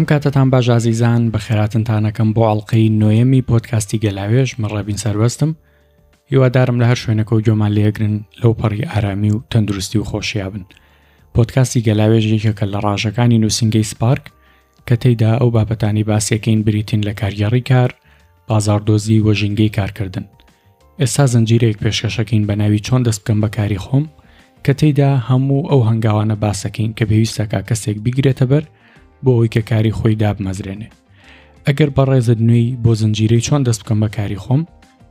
ئەم کاتەتان باش ئازیزان، بەخێراتنتان ئەکەم بۆ ئەڵقەی نۆیەمی پۆدکاستی گەلاوێژ، من ڕێبین سەربەستم. هیوادارم لە هەر شوێنێکەوە گوێمان لێگرن لەو پەڕی ئارامی و تەندروستی و خۆشییا بن. پۆدکاستی گەلاوێژ یەکێکە لە ڕاژەکانی نووسینگەی سپارک کە تێیدا ئەو بابەتانەی باسیەکەین بریتین لە کارگێڕی کار، بازاڕدۆزی و ژینگەی کارکردن. ئێستا زنجیرەیەک پێشکەشەکەین بە ناوی چۆن دەست بکەم بە کاری خۆم کە تێیدا هەموو ئەو هەنگاوانە باسەکەین کە پێویستەکە کەسێک بیگرێتە بەر بۆ ئەوەی کە کاری خۆی دابمەزرێنێ. ئەگەر بەڕێزت نوێی بۆ زنجیرەی چۆن دەست بکەم بە کاری خۆم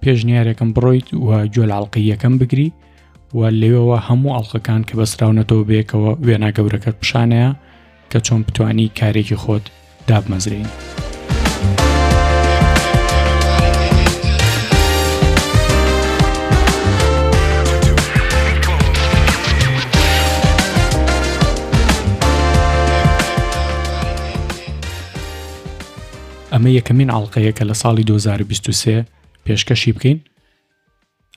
پێشنیارێکم بڕۆیت و گوێ لە ئەڵقەی یەکەم بگری و لەوێوە هەموو ئەڵقەکان کە بەسراونەتەوە بەیەکەوە وێنا گەورەکەت پیشانەیە کە چۆن بتانی کارێکی خۆت دابمەزرێنی. ئەمە یەکەمین ئەڵلقەیە کە لە ساڵی 2023 پێشکەشی بکەین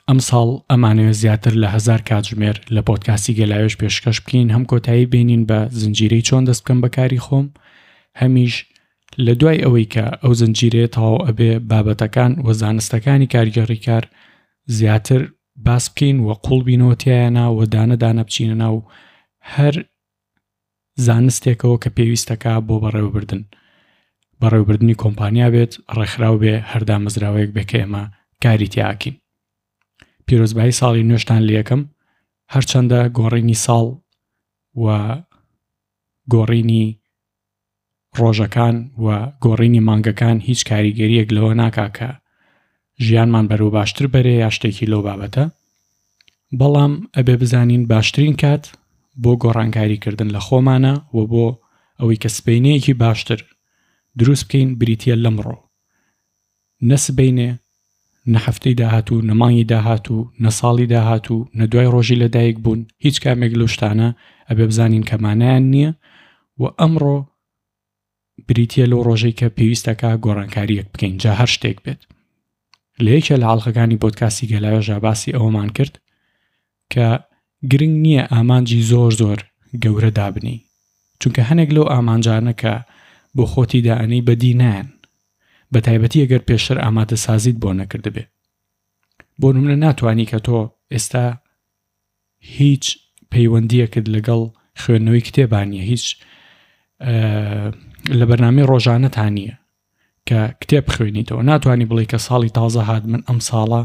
ئەمساڵ ئەمانەوێت زیاتر لە هەزار کاتژمێر لە پۆدکاستی گەلاوێژ پێشکەش بکەین، هەم کۆتایی بێنین بە زنجیرەی چۆن دەست بکەم بە کاری خۆم، هەمیش لە دوای ئەوەی کە ئەو زنجیرەیە تەواو ئەبێ بابەتەکان و زانستەکانی کارگێڕی کار زیاتر باس بکەین و قوڵ بینەوە تیایانا و دانە دانە بچینە ناو هەر زانستێکەوە کە پێویستەکا بۆ بەڕێوەبردن بەڕێوەبردنی کۆمپانیا بێت ڕێکخراو بێ هەر دامەزراوەیەک بێ کە ئێمە کاری تیاکین پیرۆزبایی ساڵی نوێشتان لەکەم هەرچەندە گۆڕینی ساڵ و گۆڕینی ڕۆژەکان و گۆڕینی مانگەکان هیچ کاریگەریەک لەوە ناکا کە ژیانمان بەرەو باشتر بەرێ یا شتێکی لەو بابەتە بەڵام ئەبێ بزانین باشترین کات بۆ گۆڕانکاری کردن لە خۆمانە و بۆ ئەوەی کە سبەینەیەکی باشتر دروست بکەین بریتە لەمڕۆ نە سبەینێ نە هەفتەی داهاتوو نە مانگی داهاتوو نە ساڵی داهاتوو نە دوای ڕۆژی لەدایک بوون هیچ کامێک لەو شتانە ئەبێ بزانین کە مانایان نییە و ئەمڕۆ بریتە لەو ڕۆژەی کە پێویستەکە گۆڕانکاریەک بکەین جا هەر شتێک بێت لە یەکێ لە ئاڵلقەکانی پۆدکاستی گەلاوێژا باسی ئەوەمان کرد کە گرنگ نییە ئامانجی زۆر زۆر گەورە دابنی چونکە هەنێک لەو ئامانجانە کە بۆ خۆتی دائەنێی بەدی نایەن بە تایبەتی ئەگەر پێشتر ئامادەسازیت بۆ نەکردبێ بۆ نمونە ناتوانی کە تۆ ئێستا هیچ پەیوەندیەکت لەگەڵ خوێندنەوەی کتێبان نیە هیچ لە بەرنامەی ڕۆژانەتان نییە کە کتێب بخوێنیتەوە ناتوانانی بڵێ کە ساڵی تازە هات من ئەم ساڵە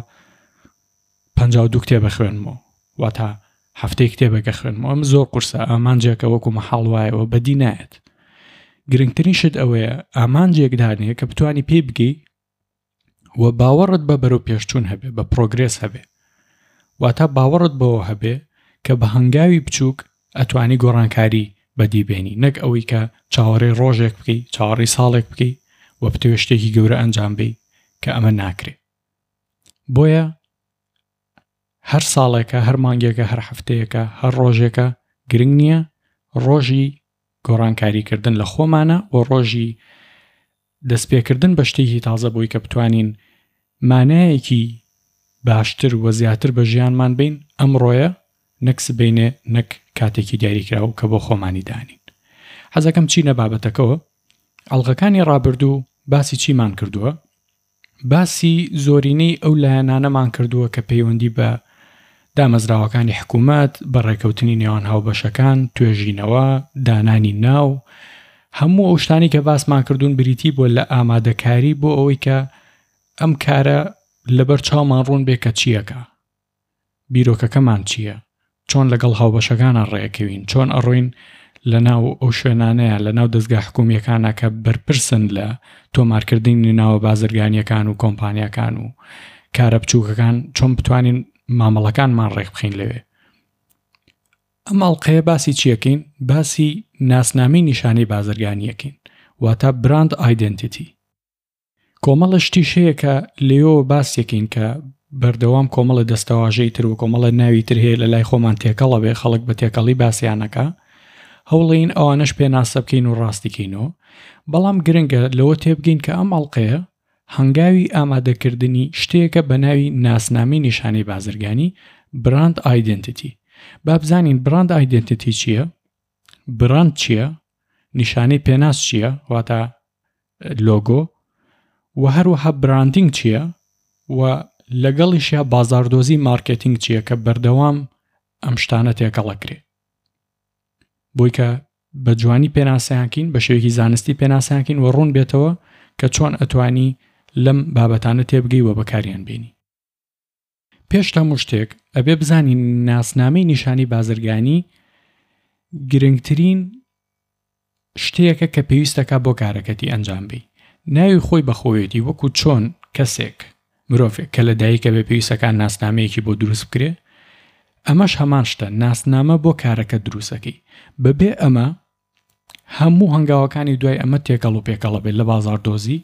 52 کتێبە خوێنمەوە واتە هەفتەی کتێبێکە خوێنمەوە ئەم زۆر قورسە ئامانجێکە وەکو مەحاڵ وایەوە بەدی نایەت گرنگترین شت ئەوەیە ئامانجێک دانێ کە بتانی پێی بگەی و باوەڕت بە بەرەو پێشچوون هەبێ بە پرۆگرێس هەبێ واتە باوەڕت بەوە هەبێ کە بە هەنگاوی بچووک ئەتوانی گۆڕانکاری بەدی بێنی نەک ئەوەی کە چاوەڕێی ڕۆژێک بکەی چاوەڕێی ساڵێک بکەی و بتەوێ شتێکی گەورە ئەنجام بەی کە ئەمە ناکرێ بۆیە هەر ساڵێکە هەر مانگێکە هەر هەفتەیەکە هەر ڕۆژێکە گرنگ نییە ڕۆژی گۆڕانکاریکردن لە خۆمانە و ڕۆژی دەستپێکردن بە شتێکی تازە بۆی کە بتوانین مانایەکی باشتر و زیاتر بە ژیانمان بین ئەمڕۆیە نەک سبەینێ نەک کاتێکی دیاریکراو کە بۆ خۆمانی دانین حەزەکەم چینە بابەتەکەوە ئەڵقەکانی ڕابردوو باسی چیمان کردووە باسی زۆرینەی ئەو لایەنانەمان کردووە کە پەیوەندی بە دامەزراوەکانی حکوومەت، بە ڕێکەوتنی نێوان هاوبەشەکان، توێژینەوە، دانانی ناو، هەموو ئەو شتانەی کە باسمان کردوون بریتی بووە لە ئامادەکاری بۆ ئەوەی کە ئەم کارە لەبەر چاومان ڕوون بێ کە چییەکە. بیرۆکەکەمان چییە؟ چۆن لەگەڵ هاوبەشەکانا ڕێکەوین؟ چۆن ئەڕۆین لەناو ئەو شوێنانەیە لەناو دەزگا حکومییەکانا کە بەرپرسن لە تۆمارکردنی ناوە بازرگانییەکان و کۆمپانیاکان و کارە بچووکەکان چۆن بتوانین مامەڵەکانمان ڕێکبخەین لەوێ؟ ئەم ئەڵقەیە باسی چیەکەین؟ باسی ناسنامەی نیشانەی بازرگانیەکەین واتە براند ئایدنتیتی. کۆمەڵە شتیش هەیە کە لێیەوە باسیەکەین کە بەردەوام کۆمەڵە دەستەواژەی تر و کۆمەڵە ناوی تر هەیە لە لای خۆمان تێکەڵە بێ خەڵک بە تێکەڵی باسیانەکە هەوڵین ئەوانەش پێناسە بکەین و ڕاستیکەینەوە بەڵام گرنگە لەوە تێبگەین کە ئەم ئەڵلقەیە هەنگاوی ئامادەکردنی شتێکە بە ناوی ناسنامەی نیشانەی بازرگانی براند ئایدنتیتی با بزانین براند ئایدنتیتی چییە؟ براند چییە؟ نیشانەی پێناس چییە واتە لۆگۆ و هەروەها branding چییە و لەگەڵیشیا بازاڕدۆزی مارکێتینگ چییە کە بەردەوام ئەم شتانە تێکەڵەکرێ بۆی کە بە جوانی پێناسەیانکەین بە شێوەیەکی زانستی پێناسەیانکەین و ڕوون بێتەوە کە چۆن ئەتوانی لەم بابەتانە تێبگەی و بەکاریان بێنی. پێش هەموو شتێک ئەبێ بزانین ناسنامەی نیشانی بازرگانی گرنگترین شتێکە کە پێویستەکە بۆ کارەکەتی ئەنجام بی ناوی خۆی بەخۆیەتی وەکو چۆن کەسێک مرۆڤێک کە لە دایکە بێ پێویستەکان ناسنامەیەکی بۆ دروست بکرێ ئەمەش هەمان شتە ناسنامە بۆ کارەکە دروستەکەی بەبێ ئەمە هەموو هەنگاوەکانی دوای ئەمە تێکەڵ و پێکەڵە بێت لە بازاڕدۆزی،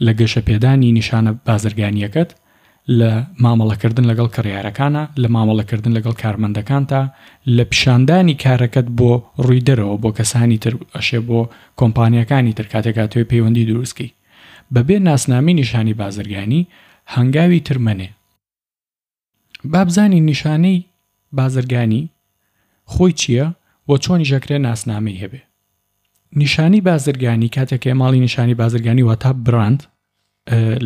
لە گەشەپێدانی نیشانە بازرگانییەکەت، لە مامەڵەکردن لەگەڵ کڕیارەکانا، لە مامەڵەکردن لەگەڵ کارمەندەکانتا، لە پیشاندانی کارەکەت بۆ ڕووی دەرەوە، بۆ کەسانی تر، ئەشێ بۆ کۆمپانیاکانی تر کاتێک ئەتەوێ پەیوەندی دروست کەی. بەبێ ناسنامەی نیشانی بازرگانی هەنگاوی تر مەنێ. با بزانین نیشانەی بازرگانی خۆی چییە و چۆنیش ئەکرێ ناسنامەی هەبێ. نیشانی بازرگانی کاتێک کە ماڵی نیشانی بازرگانی واتا براند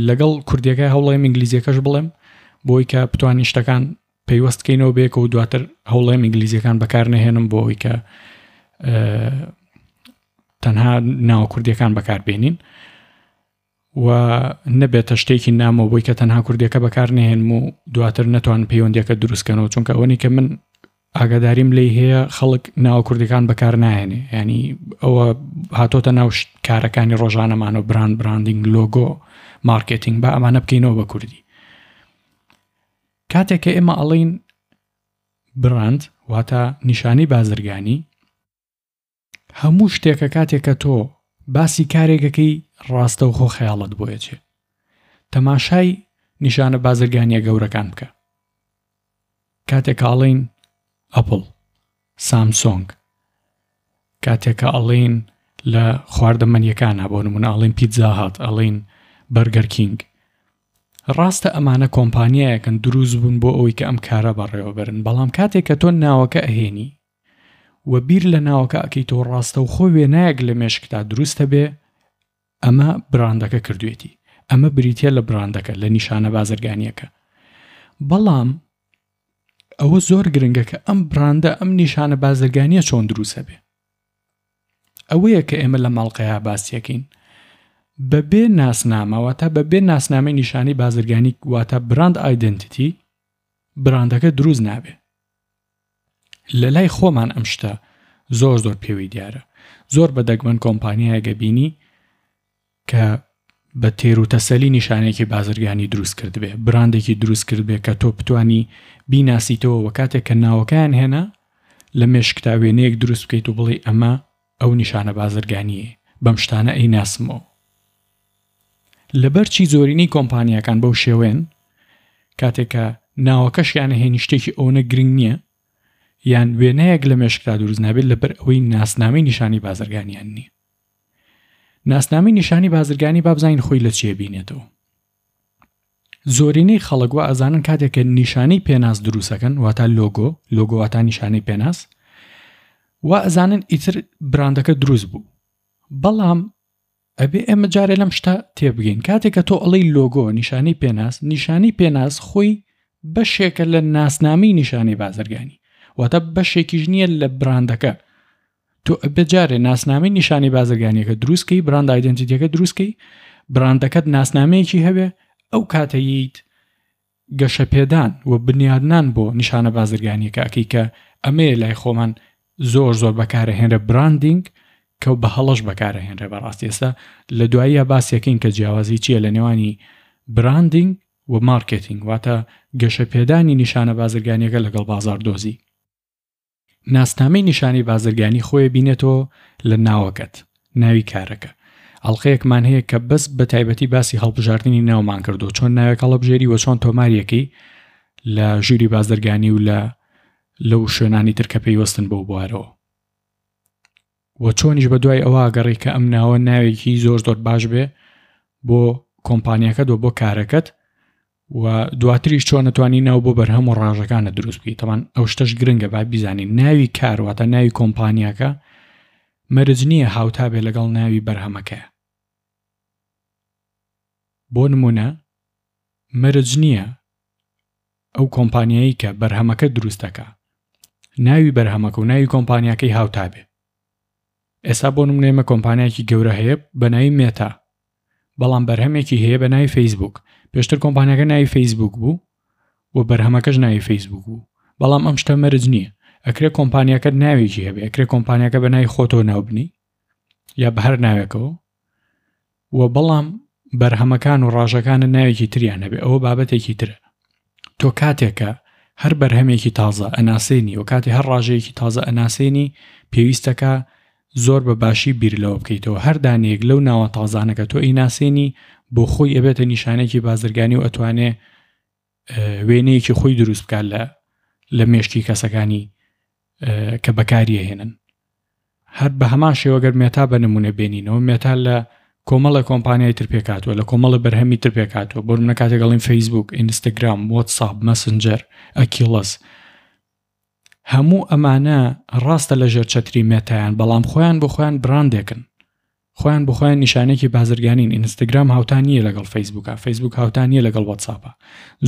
لەگەڵ کوردیەکە هەوڵێم ئینگلیزیەکەش بڵێم بۆی کە بتوانین شتەکان پەیوەست کەینەوە بێکە و دواتر هەوڵێم ئینگلیزیەکان بەکار نەهێنم بۆ ئەوی کە تەنها ناوە کوردیەکان بەکاربێنین و نەبێتە شتێکی نامۆ بۆی کە تەنها کوردیەکە بەکار نەهێنم و دواتر نەتوان پەیوەندیەکە دروستکەنەوە چونکە ئەوەنی کە من ئاگاداریم لی هەیە خەڵک ناوە کوردەکان بەکار ناهێنێ ینی ئەوە هاتۆتە ناو کارەکانی ڕۆژانەمان و brand branding لۆگۆ مارکێتینگ با ئەمانە بکەینەوە بە کوردی کاتێک کە ئێمە ئەڵین براند واتە نیشانی بازرگانی هەموو شتێکە کاتێک کە تۆ باسی کارێکەکەی ڕاستەوخۆ خەیاڵت بۆ ئەچێ تەماشای نیشانە بازرگانیە گەورەکان بکە کاتێک کە ئەڵێین ئەپڵ سامسۆنگ کاتێک کە ئەڵێین لە خواردەمەنیەکانە بۆ نمونە ئەڵێن پیتزا هات ئەڵێن بەرگەر کینگ ڕاستە ئەمانە کۆمپانیایەکەن دروست بوون بۆ ئەوەی کە ئەم کارە بەڕێوەبەرن بەڵام کاتێک کە تۆ ناوەکە ئەهێنی و بیر لە ناوەکە ئەکەیتەوە ڕاستەوخۆ وێنایەک لە مێشکتا دروست ئەبێ ئەمە براندەکە کردوێتی ئەمە بریتە لە براندەکە لە نیشانە بازرگانیەکە بەڵام ئەوە زۆر گرنگە کە ئەم براندە ئەم نیشانە بازرگانیە چۆن دروستە بێ ئەوەیە کە ئێمە لە ماڵقەیا باسیەکەین بەبێ ناسنامە واتە بەبێ ناسنامەی نیشانی بازرگانی واتە brand identity براندەکە دروست نابێ لە لای خۆمان ئەم شتە زۆر زۆر پێوەی دیارە زۆر بە دەگمەن کۆمپانیایەک ئەبینی کە بە تێر و تەسەلی نیشانێکی بازرگانی دروست کردبێ براندێکی دروست کردبێ کە تۆ بتانی بیناسیتەوە وە کاتێک کە ناوەکەیان هێنا لە مێشکتا وێنەیەک دروست بکەیت و بڵێ ئەمە ئەو نیشانە بازرگانیە بەم شتانە ئەی ناسمەوە لەبەر چی زۆرینەی کۆمپانیاکان بەو شێوەیەن کاتێک کە ناوەکەشیان هێنی شتێکی ئەوەنە گرنگ نییە یان وێنەیەک لە مێشکتا دروست نابێت لەبەر ئەوەی ناسنامەی نیشانی بازرگانیان نییە ناسنامەی نیشانی بازرگانی با بزانین خۆی لە چیە بینێتەوە زۆرینەی خەڵک وا ئەزانن کاتێک کە نیشانەی پێناس دروستەکەن واتا لۆگۆ لۆگۆ واتا نیشانەی پێناس وا ئەزانن ئیتر براندەکە دروست بوو بەڵام ئەبێ ئێمە جارێ لەم شتە تێبگەین کاتێک کە تۆ ئەڵێی لۆگۆ نیشانەی پێناس نیشانەی پێناس خۆی بەشێکە لە ناسنامەی نیشانەی بازرگانی واتە بەشێکیش نییە لە براندەکە تۆ ئەبێ جارێ ناسنامەی نیشانەی بازرگانیەکە دروستکەی brand identity ەکە دروستکەی براندەکەت ناسنامەیەکی هەبێ ئەو کاتەیت گەشەپێدان و بنیادنان بۆ نیشانە بازرگانیەکە ئەکەی کە ئەمەیە لای خۆمان زۆر زۆر بەکارەهێنرە branding کە بە هەڵەش بەکارەهێنرێ بەڕاستی ئێستا لە دواییە باسیەکەین کە جیاوازی چییە لە نێوانی branding و مارکێتینگ واتە گەشەپێدانی نیشانە بازرگانیەکە لەگەڵ بازاڕدۆزی. ناسنامەی نیشانەی بازرگانی خۆی بینێتەوە لە ناوەکەت، ناوی کارەکە. ئەڵقەیەکمان هەیە کە بەس بە تایبەتی باسی هەڵبژاردنی ناومان کردو چۆن ناوێک هەڵبژێری و چۆن تۆماریەکەی لە ژووری بازرگانی و لە لەو شوێنانی تر کە پەیوەستن بەو بوارەوە. وە چۆنیش بە دوای ئەوە گەڕی کە ئەم ناوە ناوێکی زۆر زۆر باش بێ بۆ کۆمپانیەکەت و بۆ کارەکەت و دواتریش چۆن نەتوانی ناو بۆ بەرهەم و ڕاژەکانە دروست بکەیت تەمان ئەو شتەش گرنگە با بیزانین ناوی کار واتە ناوی کۆمپانیاکە. مەرج نییە هاوتا بێ لەگەڵ ناوی بەرهەمەکەیا. بۆ نموونە مەرج نییە ئەو کۆمپانیایی کە بەرهەمەکە دروست دەکا ناوی بەرهەمەکە و ناوی کۆمپانیاکەی هاوتا بێ. ئێستا بۆ نمونە ئێمە کۆمپانیایەکی گەورە هەیە بە ناوی مێتا بەڵام بەرهەمێکی هەیە بە ناوی فەیسبوک پێشتر کۆمپانیاکە ناوی فەیسبوک بوو و بەرهەمەکەش ناوی فەیسبوک بوو بەڵام ئەم شتە مەرج نییە ئەکرێ کۆمپانیاکە ناوێکی هەبێ ئەکرێ کۆمپانیاکە بە ناوی خۆتەوە ناوبنی یا بە هەر ناوێکەوە و بەڵام بەرهەمەکان و ڕاژەکانت ناوێکی تریان هەبێ ئەوە بابەتێکی ترە تۆ کاتێکە هەر بەرهەمێکی تازە ئەناسێنی و کاتی هەر ڕاژەیەکی تازە ئەناسێنی پێویستەکە زۆر بە باشی بیر لەوە بکەیتەوە هەر دانەیەک لەو ناوە تازانەکە تۆ ئەیناسێنی بۆ خۆی ئەبێتە نیشانێکی بازرگانی و ئەتوانێ وێنەیەکی خۆی دروست بکات لە لە مێشکی کەسەکانی کە بەکاریەهێنن هەر بە هەمان شێوە گەر مێتا بە نمونە بێنینەوە مێتا لە کۆمەڵە کۆمپانیای تر پێکاتوە لە کۆمەڵە بەرهەمی تر پێکاتوە بۆ منە کاتێک گەڵین فەیسبوک ئینستاگرام واتساپ مەسنجەر ئەکیڵس هەموو ئەمانە ڕاستە لە ژێر چەتری مێتایان بەڵام خۆیان بۆ خۆیان براندێکن خۆیان بۆ خۆیان نیشانێکی بازرگانین ئینستاگرام هاوتا نییە لەگەڵ فەیسبوکە فەیسبوک هاوتا نییە لەگەڵ واتساپە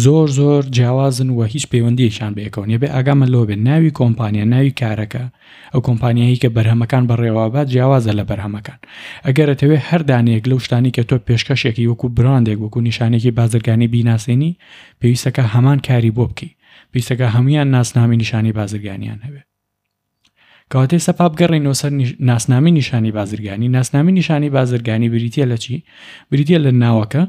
زۆر زۆر جیاوازن و هیچ پەیوەندیەکیان بەیەکەوە نیە بێ ئاگامان لەوە بێت ناوی کۆمپانیا ناوی کارەکە ئەو کۆمپانیایی کە بەرهەمەکان بەڕێوەبات جیاوازە لە بەرهەمەکان ئەگەر ئەتەوێ هەر دانەیەک لەو شتانی کە تۆ پێشکەشێکی وەکو براندێک وەکو نیشانێکی بازرگانی بیناسێنی پێویستەکە هەمان کاری بۆ بکەی پێویستەکە هەمویان ناسنامی نیشانی بازرگانیان هەبێ کەواتە ئێستا با بگەڕێینەوە سەر ناسنامی نیشانی بازرگانی ناسنامی نیشانی بازرگانی بریتە لە چی بریتە لە ناوەکە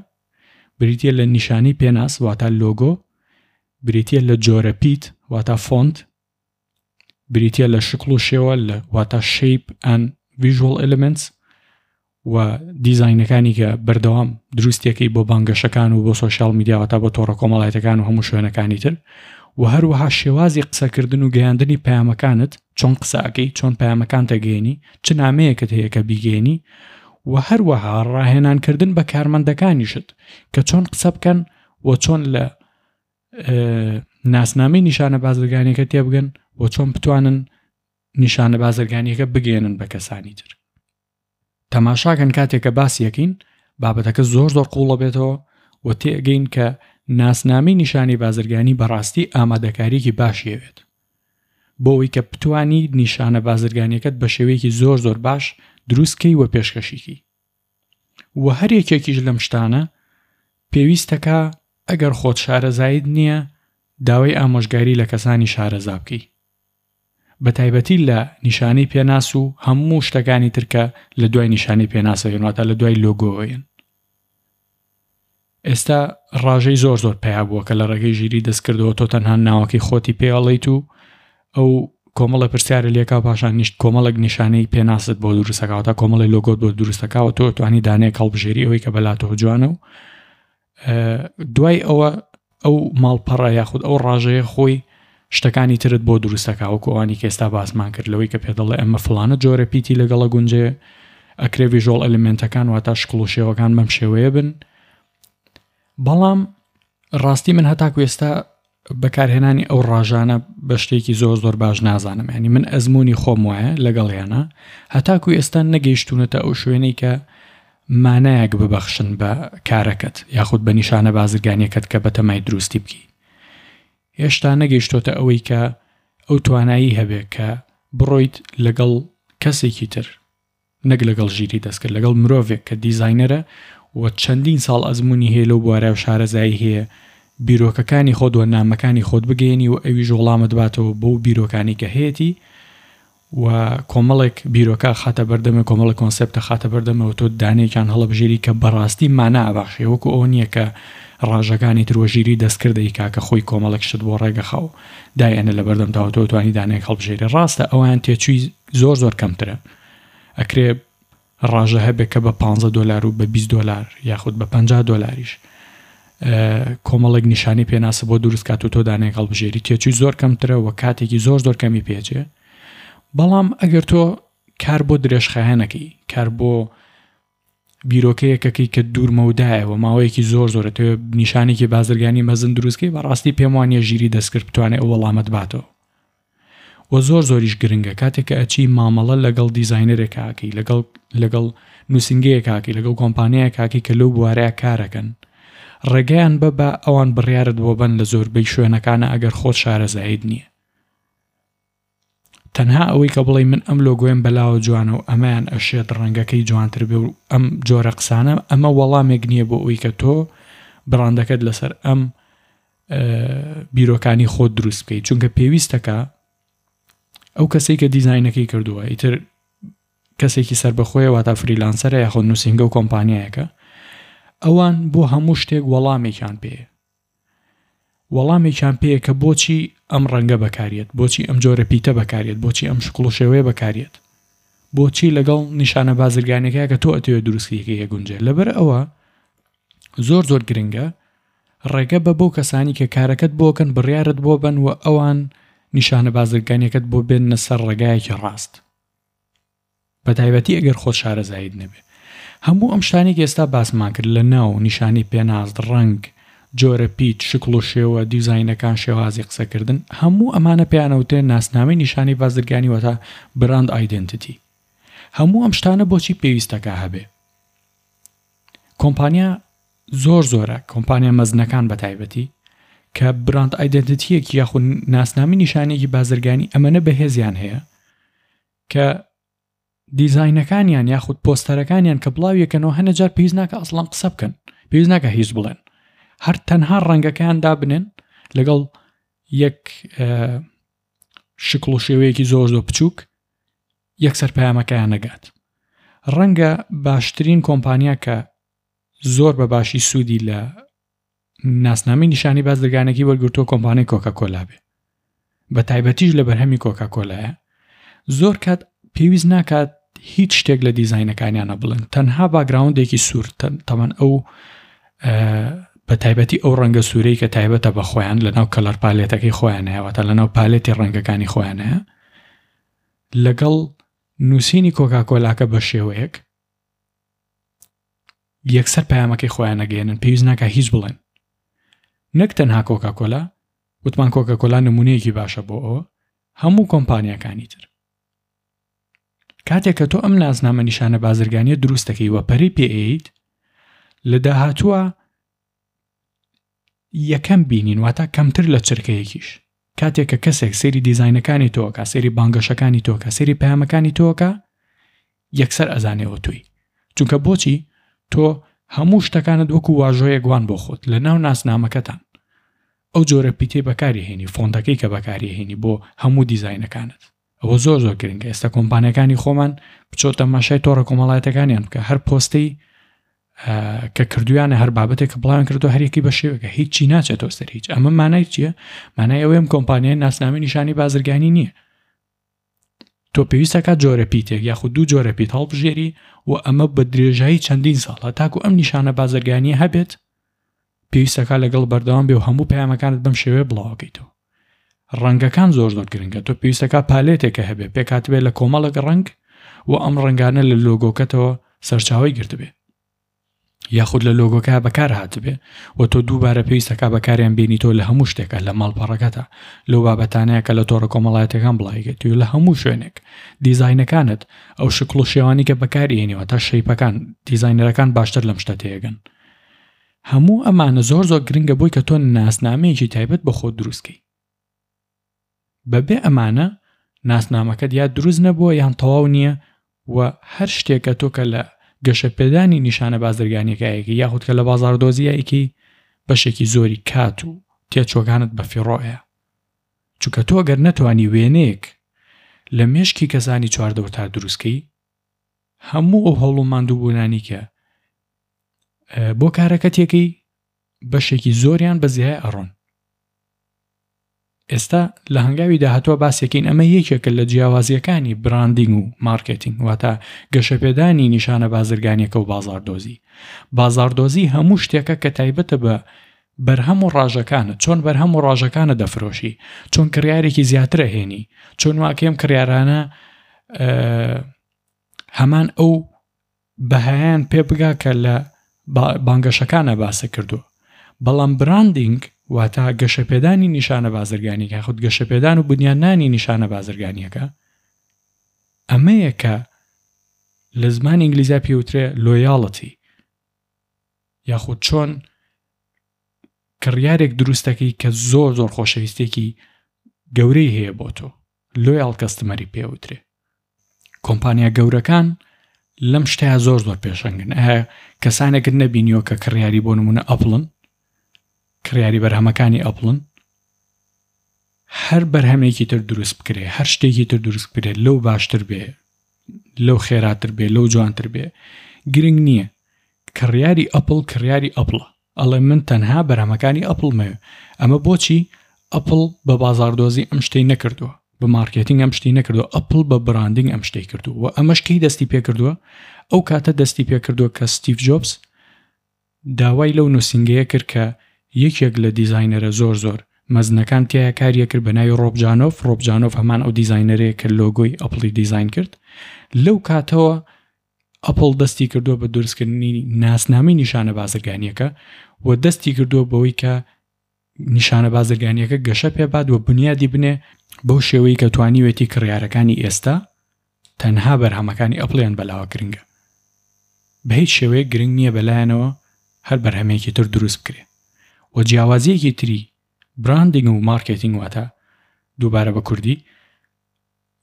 بریتە لە نیشانی پێناس واتە لۆگۆ بریتە لە جۆرە پیت واتە فۆنت بریتە لە شکڵ و شێوە لە واتە shape and visual elements و دیزاینەکانی کە بەردەوام دروستیەکەی بۆ بانگەشەکان و بۆ سۆشیال میدیا واتە بۆ تۆڕە کۆمەڵایەتەکان و هەموو شوێنەکانی تر و هەروەها شێوازی قسەکردن و گەیاندنی پەیامەکانت چۆن قسە ئەکەی چۆن پەیامەکان تەگەێنی چ نامەیەکت هەیە کە بیگەێنی و هەروەها ڕاهێنانکردن بە کارمەندەکانیشت کە چۆن قسە بکەن و چۆن لە ناسنامەی نیشانە بازرگانیەکە تێبگەن و چۆن بتوانن نیشانە بازرگانیەکە بگەێنن بە کەسانی تر تەماشاکەن کاتێک کە باسی ئەکەین بابەتەکە زۆر زۆر قوڵە بێتەوە و تێگەین کە ناسنامەی نیشانی بازرگانی بەڕاستی ئامادەکاریەکی باشی ئەوێت بۆ ئەوەی کە بتانی نیشانە بازرگانیەکەت بە شێوەیەکی زۆر زۆر باش دروستکەی و پێشکەشیکی و هەر یەکێکیش لەم شتانە پێویستەکە ئەگەر خۆت شارەزایت نییە داوای ئامۆژگاری لە کەسانی شارەزا بکەی بە تایبەتی لە نیشانەی پێناس و هەموو شتەکانی تر کە لە دوای نیشانەی پێناسەوە یەن واتە لە دوای لۆگۆوە یەن. ئێستا ڕاژەی زۆر زۆر پەیا بووە کە لە ڕێگەی ژیری دەستکردەوە تۆ تەنها ناوەکەی خۆتی پێ ئەڵێیت و ئەو کۆمەڵە پرسیارە لێکا پاشان نیشت کۆمەڵێک نیشانەی پێناست بۆ دروستەکەوە تا کۆمەڵی لۆگۆت بۆ دروستەکەوە تۆ توانی دانەیەک هەڵبژێری ئەوەی کە بەلاتەوە جوانە و دوای ئەوە ئەو ماڵپەڕە یاخود ئەو ڕاژەیە خۆی شتەکانی ترت بۆ دروستەکە وەکو ئەوانی کە ئێستا باسمان کرد لەوەی کە پێ دەڵێ ئەمە فلانە جۆرە پیتی لەگەڵە گونجێ ئەکرێ visual element ەکان واتا شکڵ و شێوەکان بەم شێوەیە بن بەڵام ڕاستی من هەتاکو ئێستا بەکارهێنانی ئەو ڕاژانە بە شتێکی زۆر زۆر باش نازانم ینی من ئەزمموی خۆم وایە لەگەڵیانە هەتاکو ئێستا نەگەیشتونەتە ئەو شوێنەی کە مانایەک ببەخشن بە کارەکەت یاخود بە نیشانە بازرگانیەکەت کە بەتەمای دروستی بکەی هێشتا نەگەیشتۆتە ئەوەی کە ئەو توانایی هەبێ کە بڕۆیت لەگەڵ کەسێکی تر نەک لەگەڵ ژیری دەستکرد، لەگەڵ مرۆڤێک کە دیزاینەرە و چەندین ساڵ ئەزموونی هەیە لەو بوارە و شارەزایی هەیە، بیرۆکەکانی خۆت و نامەکانی خۆت بگەیەنی و ئەویش وەڵامت باتەوە بەو بیرۆکانەی کە هەیەتی و کۆمەڵێک بیرۆکە ئەخاتە بەردەمێ، کۆمەڵێک کۆنسێپت ئەخاتە بەردەمێ و تۆ دانەیەکیان هەڵەبژێری کە بەڕاستی مانا ئەبەخشێ، وەکو ئەوە نییە کە ڕاژەکانی تر و ژیری دەستکرد ئەیکا کە خۆی کۆمەڵێک شت بۆ ڕێگەخا و دایئەنێ لەبەردەمتا و تۆ ئەتوانی دانەیەک هەڵبژێری. ڕاستە ئەویان تێچووی زۆر زۆر کەمترە ئەکرێ ڕاژە هەبێ کە بە 15 دۆلار و بە 20 دۆلار یاخود بە 50 دۆلاریش کۆمەڵێک نیشانی پێناسە بۆ دروست کات و تۆ دانەیەک هەڵبژێری تێچووی زۆر کەمترە و کاتێکی زۆر زۆر کەمی پێچێ بەڵام ئەگەر تۆ کار بۆ درێژخایەنەکەی کار بۆ بیرۆکەیەکەکەی کە دوور مەودایە و ماوەیەکی زۆر زۆرە تۆ نیشانێکی بازرگانی مەزن دروستکەی بەڕاستی پێم وانە ژیری دەستکرد بتوانێت ئەو وەڵامەت باتەوە. و زۆر زۆریش گرنگە کاتێک کە ئەچی مامەڵە لەگەڵ دیزاینەرێک ئاکەی لەگەڵ لەگەڵ نووسینگەیەک ئاکەی لەگەڵ کۆمپانیایەک ئاکەی کە لەو بوارەیە کارەکەن ڕێگەیان بە بە ئەوان بڕیارت بۆ بەن لە زۆربەی شوێنەکانە ئەگەر خۆت شارەزاییت نییە تەنها ئەوەی کە بڵێی من ئەم لۆگۆیەم بەلاوە جوانە و ئەمەیان ئەشێت ڕەنگەکەی جوانتر بێ و ئەم جۆرە قسانە ئەمە وەڵامێک نییە بۆ ئەوی کە تۆ بڕاندەکەت لەسەر ئەم بیرۆکانی خۆت دروست بکەیت چونکە پێویستەکە ئەو کەسێک کە دیزینەکەی کردووە ئیتر کەسێکی سربەخۆیە واتا freelancer ە یاخۆ نووسنگە و کۆمپانیایەکە ئەوان بۆ هەموو شتێک وەڵامێکیان پێ وەڵامێکیان پێیە کە بۆچی ئەم ڕەنگە بەکاریەت، بۆچی ئەم جۆرە پیتە بەکاریەت، بۆچی ئەم شکڵ و شێوەیە بەکاریەت، بۆچی لەگەڵ نیشانە بازرگانیەکە کە تۆ ئەتەوێت دروستی کەی ئەگونجێ. لەبەر ئەوە زۆر زۆر گرنگە ڕێگە بە بەو کەسانی کە کارەکەت بۆکەن بڕیارت بۆ بن و ئەوان نیشانە بازرگانیەکەت بۆ بێننە سەر ڕێگایەکی ڕاست. بەتایبەتی ئەگەر خۆت شارەزاییت نەبێ. هەموو ئەم شتانەی کە ئێستا باسمان کرد لە ناو، نیشانەی پێناس، ڕەنگ، جۆرە پیت، شکڵ و شێوە، دیزاینەکان، شێوازی قسەکردن، هەموو ئەمانە پێیان ئەوترێ ناسنامەی نیشانەی بازرگانی واتە Brand Identity. هەموو ئەم شتانە بۆچی پێویستەکا هەبێ؟ کۆمپانیا زۆر زۆرە، کۆمپانیا مەزنەکان بەتایبەتی کە brand identity یەکی یاخود ناسنامەی نیشانەیەکی بازرگانی ئەمەنە بەهێزیان هەیە کە دیزاینەکانیان یاخود پۆستەرەکانیان کە بڵاویەکەنەوە هەنە جار پێویست ناکە ئەسڵان قسە بکەن پێویست ناکە هیچ بڵێن هەر تەنها ڕەنگەکەیان دابنێن لەگەڵ یەک شکڵ و شێوەیەکی زۆر زۆر بچووک یەکسەر پەیامەکەیان نەگات ڕەنگە باشترین کۆمپانیا کە زۆر بە باشی سوودی لە ناسنامەی نیشانی بازرگانێکی وەرگرتووە کۆمپانیای کۆکا کۆلا بێ بە تایبەتیش لە بەرهەمی کۆکا کۆلایە زۆر کات پێویست ناکات هیچ شتێک لە دیزینەکانیانە بڵێن تەنها background ێکی سوور تەمان ئەو بە تایبەتی ئەو ڕەنگە سوورەی کە تایبەتە بە خۆیان لە ناو color palette ەکەی خۆیان هەیەوەتە لە ناو palette ی ڕەنگەکانی خۆیان هەیە لەگەڵ نووسینی کۆکاکۆلاکە بە شێوەیەک یەکسەر پەیامەکەی خۆیان نەگەێنن پێویست ناکە هیچ بڵێن نەک تەنها کۆکاکۆلا وتمان کۆکاکۆلا نمونەیەکی باشە بۆ ئەوە هەموو کۆمپانیاکانی تر کاتێک کە تۆ ئەم نازنامە نیشانە بازرگانیە دروست دەکەی و پەرەی پێئەیت لە داهاتووە یەکەم بینین واتە کەمتر لە چرکەیەکیش کاتێک کە کەسێک سەیری دیزاینەکانی تۆکە سەیری بانگەشەکانی تۆکە سەیری پەیامەکانی تۆکە یەکسەر ئەزانێەوە تۆی چونکە بۆچی تۆ هەموو شتەکانت وەکو واژۆیەک وان بۆ خۆت لە ناو ناسنامەکەتان ئەو جۆرە پیتەی بەکاری هێنی فۆنتەکەی کە بەکاری هێنی بۆ هەموو دیزاینەکانت ئەوە زۆر زۆر گرنگە ئێستا کۆمپانیەکانی خۆمان بچۆ تەماشای تۆڕە کۆمەڵایەتەکانیان بکە هەر پۆستەی کە کردویانە هەر بابەتێک کە بڵاویان کردو هەریەکی بە شێوەکە هیچی ناچێتەوە سەر هیچ ئەمە مانای چییە مانای ئەوەیەم کۆمپانیای ناسنامەی نیشانی بازرگانی نییە تۆ پێویستەکە جۆرە پیتێک یاخود دوو جۆرە پیت هەڵبژێری و ئەمە بە درێژایی چەندین ساڵە تاکو ئەم نیشانە بازرگانیە هەبێت پێویستەکە لەگەڵ بەردەوام بێ و هەموو پەیامەکانت بەم شێوەیە بڵاوەکەیتەوە ڕەنگەکان زۆر زۆر گرنگە تۆ پێویستەکە palette ێکە هەبێ پێکاتبێ لە کۆمەڵێک ڕەنگ و ئەم ڕەنگانە لە لۆگۆکەتەوە سەرچاوی گرتبێ یاخود لە لۆگۆکە بەکار هاتبێ و تۆ دووبارە پێویستەکە بەکاریان بینی تۆ لە هەموو شتێکە لە ماڵپەڕەکەتە لەو بابەتانەیە کە لە تۆڕە کۆمەڵایەتەکان بڵاویکەیت و لە هەموو شوێنێک دیزاینەکانت ئەو شکڵ و شێوانی کە بەکاری تا shape ەکان دیزاینەرەکان باشتر لەم شتە تێگەن هەموو ئەمانە زۆر زۆر گرنگە بۆی کە تۆ ناسنامەیەکی تایبەت بە خۆت دروست کەی. بەبێ ئەمانە ناسنامەکەت یا دروست نەبووە یان تەواو نییە و هەر شتێکە تۆ کە لە گەشەپێدانی نیشانە بازرگانیەکە یەکەی یاخود کە لە بازاڕدۆزیە یەکەی بەشێکی زۆری کات و تێچوەکانت بەفیڕۆیە چونکە تۆ گەر نەتوانی وێنەیەک لە مێشکی کەسانی چواردەورتا دروستکەی هەموو ئەو هەوڵ و ماندووبوونانی کە بۆ کارەکەتێکەی بەشێکی زۆریان بە زیای ئەڕۆن ئێستا لە هەنگاوی داهاتوە باسێکین ئەمە یەکێکە لە جیاوازیەکانی branding و مارکێتینگ واتە گەشەپێدانی نیشانە بازرگانیەکە و بازاردۆزی بازاردۆزی هەموو شتێکە کە تایبەتە بە بەرهەم و ڕاژەکانە چۆن بەرهەم و ڕاژەکانە دەفرۆشی چۆن کڕیارێکی زیاترە هێنی چۆن واکەم کڕیارانە هەمان ئەو بەهایان پێ بگا کە لە بانگەشەکانە باسە کردووە بەڵام branding. واتە گەشەپێدانی نیشانە بازرگانیەکە یاخود گەشەپێدان و بنیادنانی نیشانە بازرگانیەکە ئەمەیە کە لە زمانی ئینگلیزیا پێوترێ لۆیاڵەتی یاخود چۆن کڕیارێک دروستەکەی کە زۆر زۆر خۆشەویستێکی گەورەی هەیە بۆ تۆ لۆیاڵ کەستمەری پێوترێ کۆمپانیا گەورەکان لەم شتەیە زۆر زۆر پێشەنگن ئایا کەسانێکت نەبینیوە کە کڕیاری بۆ نمونە ئەپڵن کڕیاری بەرهەمەکانی ئەپڵن هەر بەرهەمێکی تر دروست بکرێ هەر شتێکی تر دروست بکرێت لەو باشتر بێ لەو خێراتر بێ لەو جوانتر بێ گرنگ نییە کڕیاری ئەپڵ کڕیاری ئەپڵە ئەڵێ من تەنها بەرهەمەکانی ئەپڵمەوێ ئەمە بۆچی ئەپڵ بە بازاڕدۆزی ئەم شتەی نەکردووە بە مارکێتینگ ئەم شتی نەکردووە ئەپڵ بە براندینگ ئەم شتەی کردووە و ئەمەش کەی دەستی پێکردووە ئەو کاتە دەستی پێکردووە کە ستیڤ جۆبس داوای لەو نووسینگەیە کرد کە یەکێک لە دیزاینەرە زۆر زۆر مەزنەکان تیایا کاریە کرد بە ناوی ڕۆب جانۆف ڕۆب جانۆف هەمان ئەو دیزاینەرەیە کە لۆگۆی ئەپڵی دیزاین کرد لەو کاتەوە ئەپڵ دەستی کردووە بە دروستکردنی ناسنامەی نیشانە بازرگانیەکە و دەستی کردووە بەوەی کە نیشانە بازرگانیەکە گەشە پێبات و بنیادی بنێ بەو شێوەی کە توانیوێتی کڕیارەکانی ئێستا تەنها بەرهەمەکانی ئەپڵیان بەلاوە گرنگە بە هیچ شێوەیەک گرنگ نییە بەلایەنەوە هەر بەرهەمێکی تر دروست بکرێ و جیاوازیەکی تری براندینگ و مارکێتینگ واتە دووبارە بە کوردی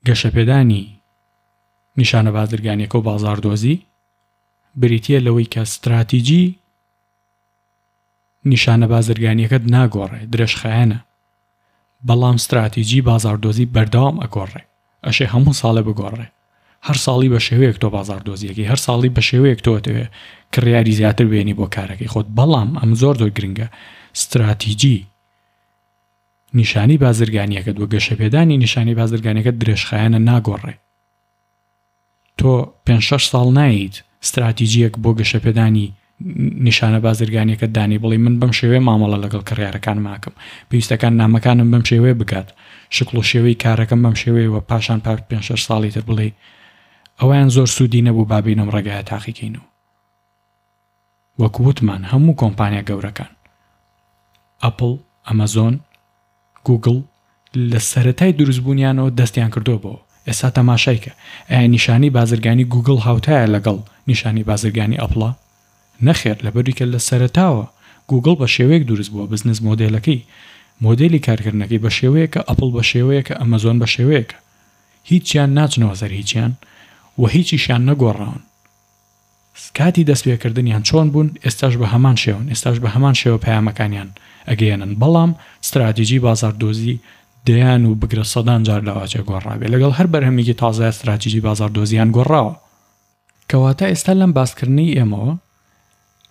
گەشەپێدانی نیشانە بازرگانیەکە و بازاڕدۆزی بریتییە لەوەی کە ستراتیجی نیشانە بازرگانیەکەت ناگۆڕێ، درێژخایەنە، بەڵام ستراتیجی بازاڕدۆزی بەردەوام ئەگۆڕێ، ئەشێ هەموو ساڵێ بگۆڕێ، هەر ساڵی بە شێوەیەک تۆ بازاڕدۆزیەکەی، هەر ساڵی بە شێوەیەک تۆ ئەتەوێ کڕیاری زیاتر بێنی بۆ کارەکەی خۆت، بەڵام ئەم زۆر زۆر گرنگە ستراتیجی نیشانەی بازرگانیەکەت و گەشەپێدانی نیشانەی بازرگانیەکەت درێژخایەنە ناگۆڕێ. تۆ پێنج شەش ساڵ نایەیت ستراتیجیەک بۆ گەشەپێدانی نیشانە بازرگانیەکەت دانی بڵێی من بەم شێوەیە مامەڵە لەگەڵ کڕیارەکانم ئەکەم پێویستەکان نامەکانم بەم شێوەیە بگات شکڵ و شێوەی کارەکەم بەم شێوەیە و پاشان پاش پێنج شەش ساڵی تر بڵێی ئەویان زۆر سوودی نەبوو با بێین ئەم ڕێگایە تاقیکەینەوە. وەک وتمان هەموو کۆمپانیا گەورەکان، ئەپڵ، ئەمەزۆن، گوگڵ، لە سەرەتای دروستبوونیانەوە دەستیان کردووە بەوە. ئێستا تەماشای کە، ئایا نیشانەی بازرگانی گوگڵ هاوتایە لەگەڵ نیشانەی بازرگانی ئەپڵا؟ نەخێر، لەبەروی کە لە سەرەتاوە گوگڵ بە شێوەیەک دروست بووە، بزنس مۆدێلەکەی، مۆدێلی کارکردنەکەی بە شێوەیەکە، ئەپڵ بە شێوەیەکە، ئەمەزۆن بە شێوەیەکە. هیچیان ناچنەوە سەر هیچیان و هیچیشیان نەگۆڕاون. کاتی دەستپێکردنیان چۆن بوون، ئێستاش بە هەمان شێوەن، ئێستاش بە هەمان شێوە پەیامەکانیان ئەگەیەنن، بەڵام ستراتیجی بازاڕدۆزی دەیان و بگرە سەدان جار لەواچێ گۆڕابێ، لەگەڵ هەر بەرهەمێکی تازەیا ستراتیجی بازاڕدۆزییان گۆڕاوە. کەواتە ئێستا لەم باسکردنەی ئێمەوە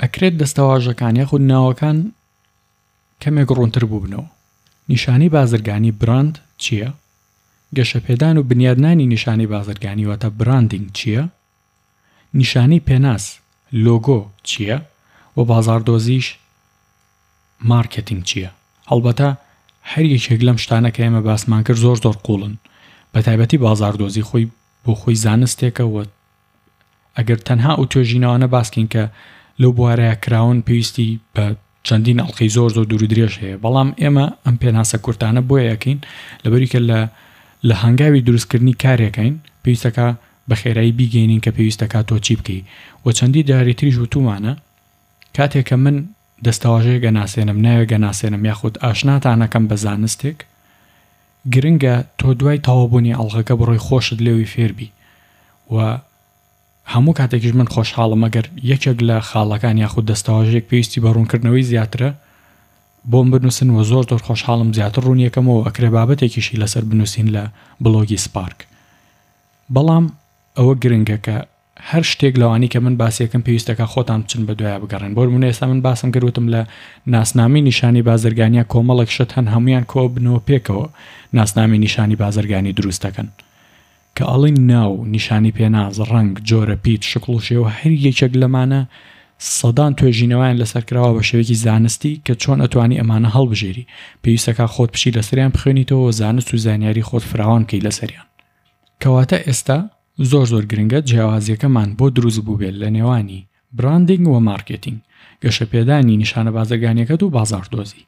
ئەکرێت دەستەواژەکان یاخود ناوەکان کەمێک ڕوونتر بووبنەوە. نیشانەی بازرگانی براند چییە؟ گەشەپێدان و بنیادنانی نیشانەی بازرگانی واتە براندینگ چییە؟ نیشانەی پێناس، لۆگۆ، چییە و بازاڕدۆزیش، مارکێتینگ، چییە؟ هەڵبەتە هەر یەکێک لەم شتانە کە ئێمە باسمان کرد زۆر زۆر قووڵن، بەتایبەتی بازاڕدۆزی خۆی بۆ خۆی زانستێکە و ئەگەر تەنها ئەو توێژینەوانە باس کەین کە لەو بوارەیا کراون پێویستی بە چەندین ئەڵقەی زۆر زۆر دوور و درێژ هەیە بەڵام ئێمە ئەم پێناسە کورتانە بۆیە ئەکەین لەبەری کە لە لە هەنگاوی دروستکردنی کارێکین پێویستەکە بە خێرایی بیگەینین کە پێویستەکە تۆ چی بکەی و چەندی جاری تریش وتومانە کاتێک کە من دەستەواژەیەک ئەناسێنم ناوێک ئەناسێنم یاخود ئاشناتانەکەم بە زانستێک گرنگە تۆ دوای تەواوبوونی ئەڵقەکە بڕۆی خۆشت لێوی فێربی و هەموو کاتێکیش من خۆشحاڵم ئەگەر یەکێک لە خاڵەکان یاخود دەستەواژەیەک پێویستی بە ڕوونکردنەوەی زیاترە بۆم بنووسن و زۆر زۆر خۆشحاڵم زیاتر ڕوونیەکەمەوە و ئەکرێ بابەتێکیشی لەسەر بنووسین لە بڵۆگی سپارک بەڵام ئەوە گرنگە کە هەر شتێک لەوانی کە من باسیەکەم پێویستەکە خۆتان بچن بە دوایە بگەڕێن بۆ نمونە ئێستا من باسم کرد وتم لە ناسنامەی نیشانی بازرگانیا کۆمەڵێک شت هەن هەمویان کۆبنەوە پێکەوە ناسنامەی نیشانی بازرگانی دروست دەکەن کە ئەڵێین ناو، نیشانی پێناس، ڕەنگ، جۆرە پیت، شکڵ و شێوە هەر یەکێک لەمانە سەدان توێژینەوەیان لەسەر کراوە بە شێوەیەکی زانستی کە چۆن ئەتوانی ئەمانە هەڵبژێری پێویستەکا خۆت بچی لەسەریان بخوێنیتەوە و زانست و زانیاری خۆت فراوان بکەی لەسەریان. کەواتە ئێستا زۆر زۆر گرنگە جیاوازیەکەمان بۆ دروست بووبێت لە نێوانی براندینگ و مارکێتینگ، گەشەپێدانی نیشانە بازرگانیەکەت و بازاڕدۆزی.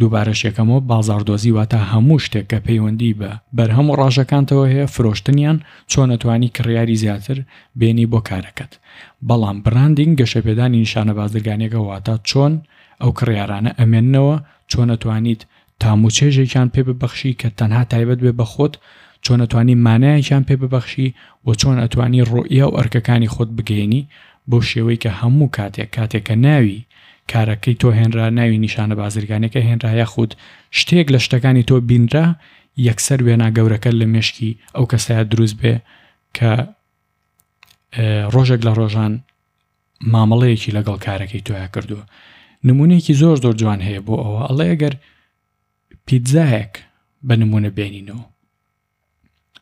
دووبارەش یەکەمەوە بازاڕدۆزی واتە هەموو شتێک کە پەیوەندی بە بەرهەم و ڕاژەکانتەوە هەیە فرۆشتنیان چۆن ئەتوانی کڕیاری زیاتر بێنی بۆ کارەکەت بەڵام براندینگ گەشەپێدانی نیشانە بازرگانیەکە واتە چۆن ئەو کڕیارانە ئەمێننەوە چۆن ئەتوانیت تام و چێژێکیان پێ ببەخشی کە تەنها تایبەت بێ بە خۆت، چۆن ئەتوانی مانایەکیان پێ ببەخشی و چۆن ئەتوانی ڕوئیا و ئەرکەکانی خۆت بگەیەنی بەو شێوەی کە هەموو کاتێک کاتێک کە ناوی کارەکەی تۆ هێنرا ناوی نیشانە بازرگانیەکە هێنرا یاخود شتێک لە شتەکانی تۆ بینرا یەکسەر وێنا گەورەکە لە مێشکی ئەو کەسەیا دروست بێ کە ڕۆژێک لە ڕۆژان مامەڵەیەکی لەگەڵ کارەکەی تۆیا کردووە نمونەیەکی زۆر زۆر جوان هەیە بۆ ئەوە ئەڵێ ئەگەر پیتزایەک بە نمونە بێنینەوە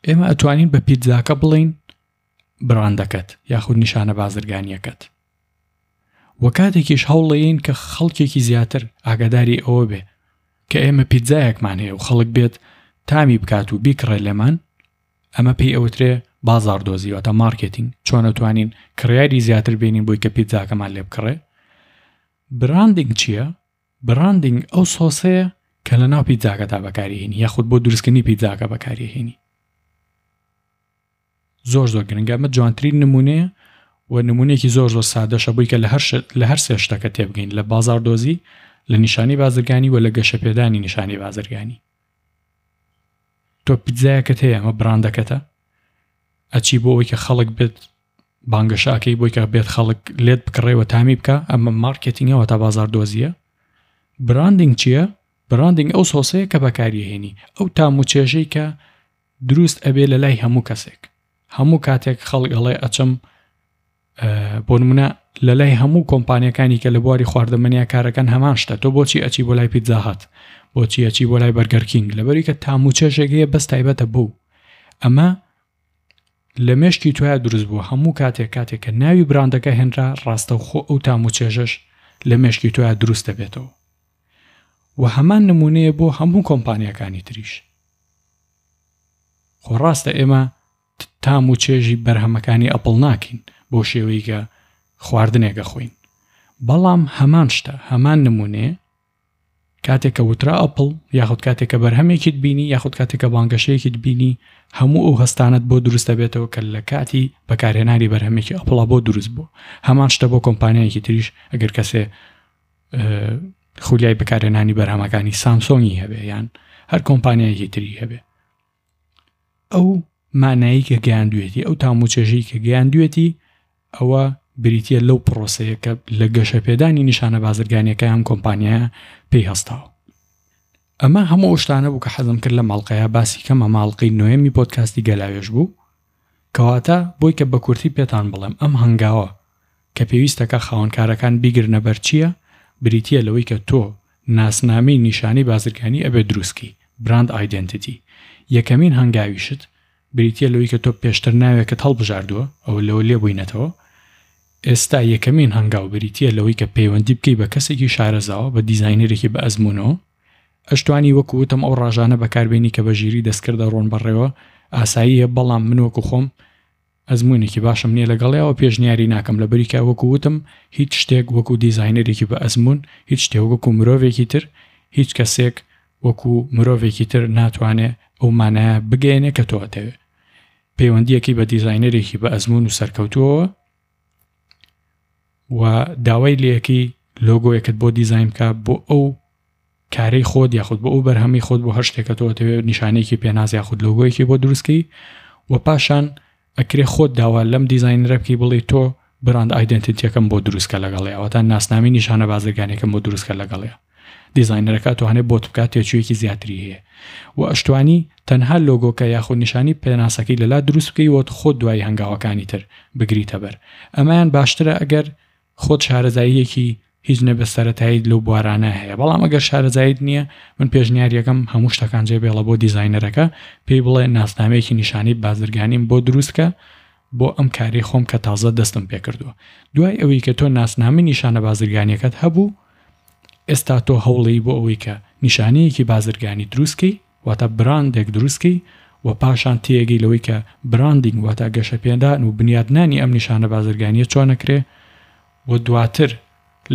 ئێمە ئەتوانین بە پیتزاکە بڵین براندەکەت یاخود نیشانە بازرگانیەکەت و کاتێکیش هەوڵەیەین کە خەڵکێکی زیاتر ئاگاداری ئەوە بێ کە ئێمە پیتزایەکمان هەیە و خەڵک بێت تامی بکات و بیکڕێ لێمان ئەمە پێی ئەوترێ بازاڕدۆزی واتە مارکێتینگ، چۆن ئەتوانین کڕیاری زیاتر بێنین بۆی کە پیتزاکەمان لێ بکڕێ. براندینگ چییە؟ براندینگ ئەو سۆسەیە کە لە ناو پیتزاکەدا بەکاریهێنی یاخود بۆ دروستکردنی پیتزاکە بەکاریهێنی. زۆر زۆر گرنگە ئەمە جوانترین نمونەیە و نمونەیەکی زۆر زۆر سادەشە بووی کە لە هەر لە هەر سێ شتەکە تێبگەین لە بازاڕدۆزی لە نیشانی بازرگانی و لە گەشەپێدانی نیشانی بازرگانی. تۆ پیتزایەکت هەیە ئەمە براندەکەتە ئەچی بۆ ئەوەی کە خەڵک بێت بانگەشاکەی بۆی کە بێت خەڵک لێت بکڕێەوە تامی بکە ئەمە مارکێتینگەوە تا بازار دۆزیە براندینگ چییە؟ براندینگ ئەو سۆسەیە کە بەکاریهێنی ئەو تام و چێژەی کە دروست ئەبێ لە لای هەموو کەسێک هەموو کاتێک خەڵک ئەڵێ ئەچم بۆ نمونە لە لای هەموو کۆمپانیەکانی کە لە بواری خواردەمەنیا کارەکەن هەمان شتە تۆ بۆچی ئەچی بۆ لای پیتزا هات بۆچی ئەچی بۆ لای بەرگەر کینگ لەبەری کە تام و چێژێک هەیە بەس تایبەتە بوو ئەمە لە مێشکی تۆیا دروست بووە هەموو کاتێک کاتێک کە ناوی براندەکە هێنرا ڕاستەوخۆ ئەو تام و چێژەش لە مێشکی تۆیا دروست دەبێتەوە و هەمان نمونەیە بۆ هەموو کۆمپانیەکانی تریش خۆ ڕاستە ئێمە تام و چێژی بەرهەمەکانی ئەپڵ ناکەین بەو شێوەی کە خواردنێک ئەخۆین بەڵام هەمان شتە هەمان نمونەیە کاتێک کە وترا ئەپڵ یاخود کاتێک کە بەرهەمێکیت بینی یاخود کاتێک کە بانگەشەیەکیت بینی هەموو ئەو هەستانت بۆ دروست دەبێتەوە کە لە کاتی بەکارهێنانی بەرهەمێکی ئەپڵا بۆ دروست بوو هەمان شتە بۆ کۆمپانیایەکی تریش ئەگەر کەسێ خولیای بەکارهێنانی بەرهەمەکانی سامسۆنگی هەبێ یان هەر کۆمپانیایەکی تری هەبێ ئەو مانایی کە گەیاندوێتی ئەو تام و چێژەی کە گەیاندوێتی ئەوە بریتە لەو پرۆسەیە کە لە گەشەپێدانی نیشانە بازرگانیەکە ئەم کۆمپانیایە پێی هەستاوە ئەمە هەموو ئەو شتانە بوو کە حەزم کرد لە ماڵقەیە باسی کەم ئەمە ئەڵقەی نۆیەمی پۆدکاستی گەلاوێژ بوو کەواتە بۆی کە بە کورتی پێتان بڵێم ئەم هەنگاوە کە پێویستەکە خاوەنکارەکان بیگرنە بەر چییە بریتییە لەوەی کە تۆ ناسنامەی نیشانەی بازرگانی ئەبێت دروستکەی، Brand Identity، یەکەمین هەنگاویشت بریتییە لەوەی کە تۆ پێشتر ناوێکت هەڵبژاردووە ئەوە لەوە لێبووینەتەوە ئێستا یەکەمین هەنگاو بریتییە لەوەی کە پەیوەندی بکەی بە کەسێکی شارەزاوە بە دیزاینەرێکی بە ئەزموونەوە ئەشتوانی وەکو وتم ئەو ڕاژانە بەکاربێنی کە بە ژیری دەستکرد دەڕۆن بەڕێوە ئاساییە بەڵام من وەکو خۆم ئەزموونێکی باشم نییە لەگەڵیا و پێشنیاری ناکەم لەبەری کە وەکو وتم هیچ شتێک وەکو دیزاینەرێکی بە ئەزموون هیچ شتێک وەکو مرۆڤێکی تر هیچ کەسێک وەکو مرۆڤێکی تر ناتوانێ ئەو مانایە بگەیەنێ کە تۆ ئەتەوێ پەیوەندیەکەی بە دیزاینەرێکی بە ئەزموون و سەرکەوتووەوە و داوای لەکەی لۆگۆیەکت بۆ دیزاین بکە بۆ ئەو کارەی خۆت یاخود بۆ ئەو بەرهەمەی خۆت بۆ هەر شتێکە تۆ ئەتەوێت نیشانەیەکی پێناس یاخود لۆگۆیەکی بۆ دروستکەی و پاشان ئەکرێ خۆت داوا لەم دیزاینەرە بکەی بڵێ تۆ براند ئایدنتیتیەکەم بۆ دروستکە لەگەڵی ئەوەتا ناسنامی نیشانە بازرگانەکەم بۆ دروستکە لەگەڵی دیزاینەرەکە توانێت بۆت بکات تێچوویەکی زیاتری هەیە و ئەشتوانی تەنها لۆگۆکە یاخود نیشانی پێناسەکەی لەلا دروست بکەی وەت خۆت دوای هەنگاوەکانی تر بگریتە بەر ئەمەیان باشترە ئەگەر خۆت شارەزاییەکی هیچ نەبێت سەرەتاییت لەو بوارانە هەیە بەڵام ئەگەر شارەزاییت نییە من پێشنیاریەکەم هەموو شتەکان جێ بێڵە بۆ دیزاینەرەکە پێی بڵێ ناسنامەیەکی نیشانەی بازرگانیم بۆ دروست کە بۆ ئەم کارەی خۆم کە تازە دەستم پێکردووە دوای ئەوەی کە تۆ ناسنامەی نیشانە بازرگانیەکەت هەبوو ئێستا تۆ هەوڵی بۆ ئەوەی کە نیشانەیەکی بازرگانی دروستکەی واتە براندێک دروستکەی و پاشان تێگەی لەوەی کە براندینگ واتە گەشەپێدان و بنیادنانی ئەم نیشانە بازرگانیە چۆن ئەکرێ و دواتر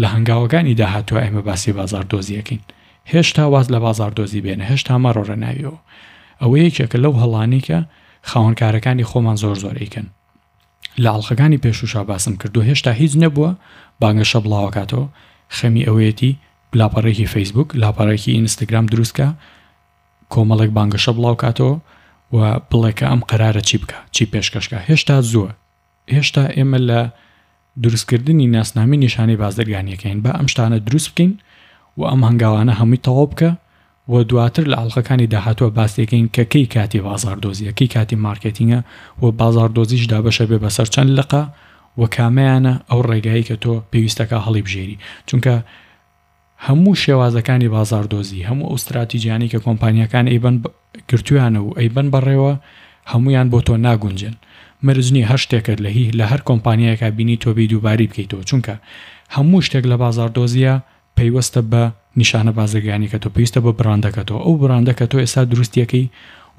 لە هەنگاوەکانی داهاتوە ئێمە باسی بازاڕدۆزی ئەکەین. هێشتا واز لە بازاڕدۆزی بێنە، هێشتا مەڕۆرە ناویەوە. ئەوە یەکێکە لەو هەڵانەی کە خاوەنکارەکانی خۆمان زۆر زۆر ئەیکەن. لە ئەڵقەکانی پێشووشا باسم کردووە هێشتا هیچ نەبووە بانگەشە بڵاوەکاتەوە خەمی ئەوەیەتی لاپەڕێکی فەیسبوک لاپەڕێکی ئینستاگرام دروستکە کۆمەڵێک بانگەشە بڵاوکاتەوە و بڵێ کە ئەم قەرارە چی بکە چی پێشکەشکە هێشتا زووە هێشتا ئێمە لە دروستکردنی ناسنامی نیشانەی بازرگانیەکەین با ئەم شتانە دروست بکەین و ئەم هەنگاوانە هەمووی تەواو بکە و دواتر لە ئەڵقەکانی داهاتووە باس دەکەین کە کەی کاتی بازاڕدۆزیە کەی کاتی مارکێتینگە و بازاڕدۆزیش دابەشە بێ بەسەر چەند لقە و کامەیانە ئەو ڕێگایی کە تۆ پێویستەکە هەڵیبژێری چونکە هەموو شێوازەکانی بازاڕدۆزی هەموو ئەو ستراتیجیانەی کە کۆمپانیاکان ئەیبەن گرتویانە و ئەیبەن بەڕێوە هەمویان بۆ تۆ ناگونجێن مەرج نیە هەر شتێکت لە هی لە هەر کۆمپانیایەکا بینی تۆ بێی دووبارەی بکەیتەوە چونکە هەموو شتێک لە بازاڕدۆزیە پەیوەستە بە نیشانە بازرگانیەکەتەوە، پێویستە بە بڕاندەکەتەوە، ئەو بڕاندە کە تۆ ئێستا دروستیەکەی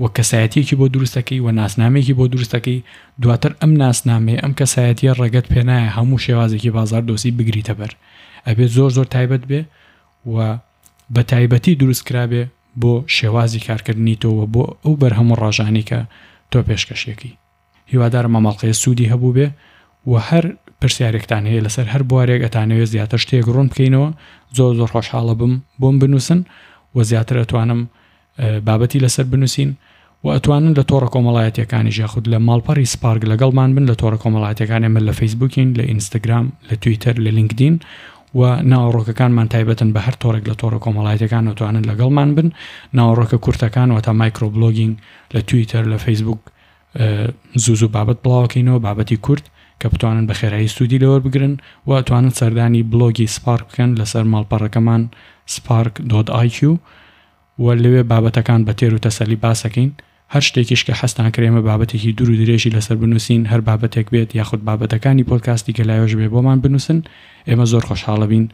و کەسایەتیەکی بۆ دروستەکەی و ناسنامەیەکی بۆ دروستەکەی، دواتر ئەم ناسنامەیە، ئەم کەسایەتیە ڕێگەت پێنایە هەموو شێوازێکی بازاردۆزی بگریتە بەر، ئەبێت زۆر زۆر تایبەت بێ و بە تایبەتی دروست کرابێ بۆ شێوازی کارکردنی تۆ و بۆ ئەو بەرهەم و ڕاژانەی کە تۆ پێشکەشیەکەی. هیوادارم ئەم ئەڵقەیە سوودی هەبووبێ و هەر پرسیارێکتان هەیە لەسەر هەر بوارێک ئەتانەوێت زیاتر شتێک ڕوون بکەینەوە زۆر زۆر خۆشحاڵە بم بۆم بنووسن و زیاتر ئەتوانم بابەتی لەسەر بنووسین و ئەتوانن لە تۆڕە کۆمەڵایەتیەکانیش یاخود لە ماڵپەڕی سپارک لەگەڵمان بن لە تۆڕە کۆمەڵایەتیەکان ئێمە لە فەیسبوکین لە ئینستاگرام لە تویتەر لە لینکدین و ناوەڕۆکەکانمان تایبەتن بە هەر تۆڕێک لە تۆڕە کۆمەڵایەتیەکان ئەتوانن لەگەڵمان بن ناوەڕۆکە کورتەکان واتە micro blogging لە تویتەر لە فەیسبوک زوو زوو بابەت بڵاوەکەینەوە بابەتی کورت کە بتوانن بە خێرایی سوودی لێوەربگرن و ئەتوانن سەردانی بلۆگی سپارک بکەن لەسەر ماڵپەڕەکەمان spark.iq و لەوێ بابەتەکان بە تێر و تەسەلی باسەکەین هەر شتێکیش کە حەزتان کرد ئێمە بابەتێکی دوور و درێژی لەسەر بنووسین هەر بابەتێک بێت یاخود بابەتەکانی پۆدکاستی گەلاوێژ بێ بۆمان بنووسن ئێمە زۆر خۆشحاڵەبین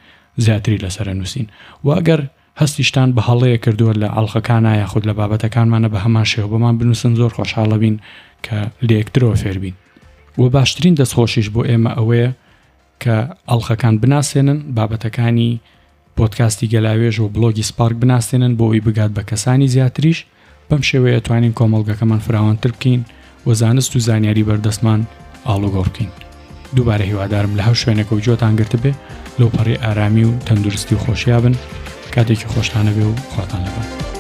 زیاتری لەسەر ئەنووسین و ئەگەر هەستیشتان بە هەڵەیەک کردووە لە ئەڵقەکانا یاخود لە بابەتەکانمانە بە هەمان شێوە بۆمان بنووسن زۆر خۆشحاڵەبین کە لە یەکترەوە فێربین. وە باشترین دەستخۆشیش بۆ ئێمە ئەوەیە کە ئەڵقەکان بناسێنن، بابەتەکانی پۆدکاستی گەلاوێژ و بڵۆگی سپارک بناسێنن بۆ ئەوەی بگات بە کەسانی زیاتریش، بەم شێوەیە توانین کۆمەڵگەکەمان فراوانتر بکەین و زانست و زانیاری بەردەستمان ئاڵوگۆڕ بکەین. دووبارە هیوادارم لە هەر شوێنێکەوە گوێتان گرتبێ لەوپەڕی ئارامی و تەندروستی و خۆشیا بن. کاتێکی خۆشتان هەبێ و خواتان لەگەڵ.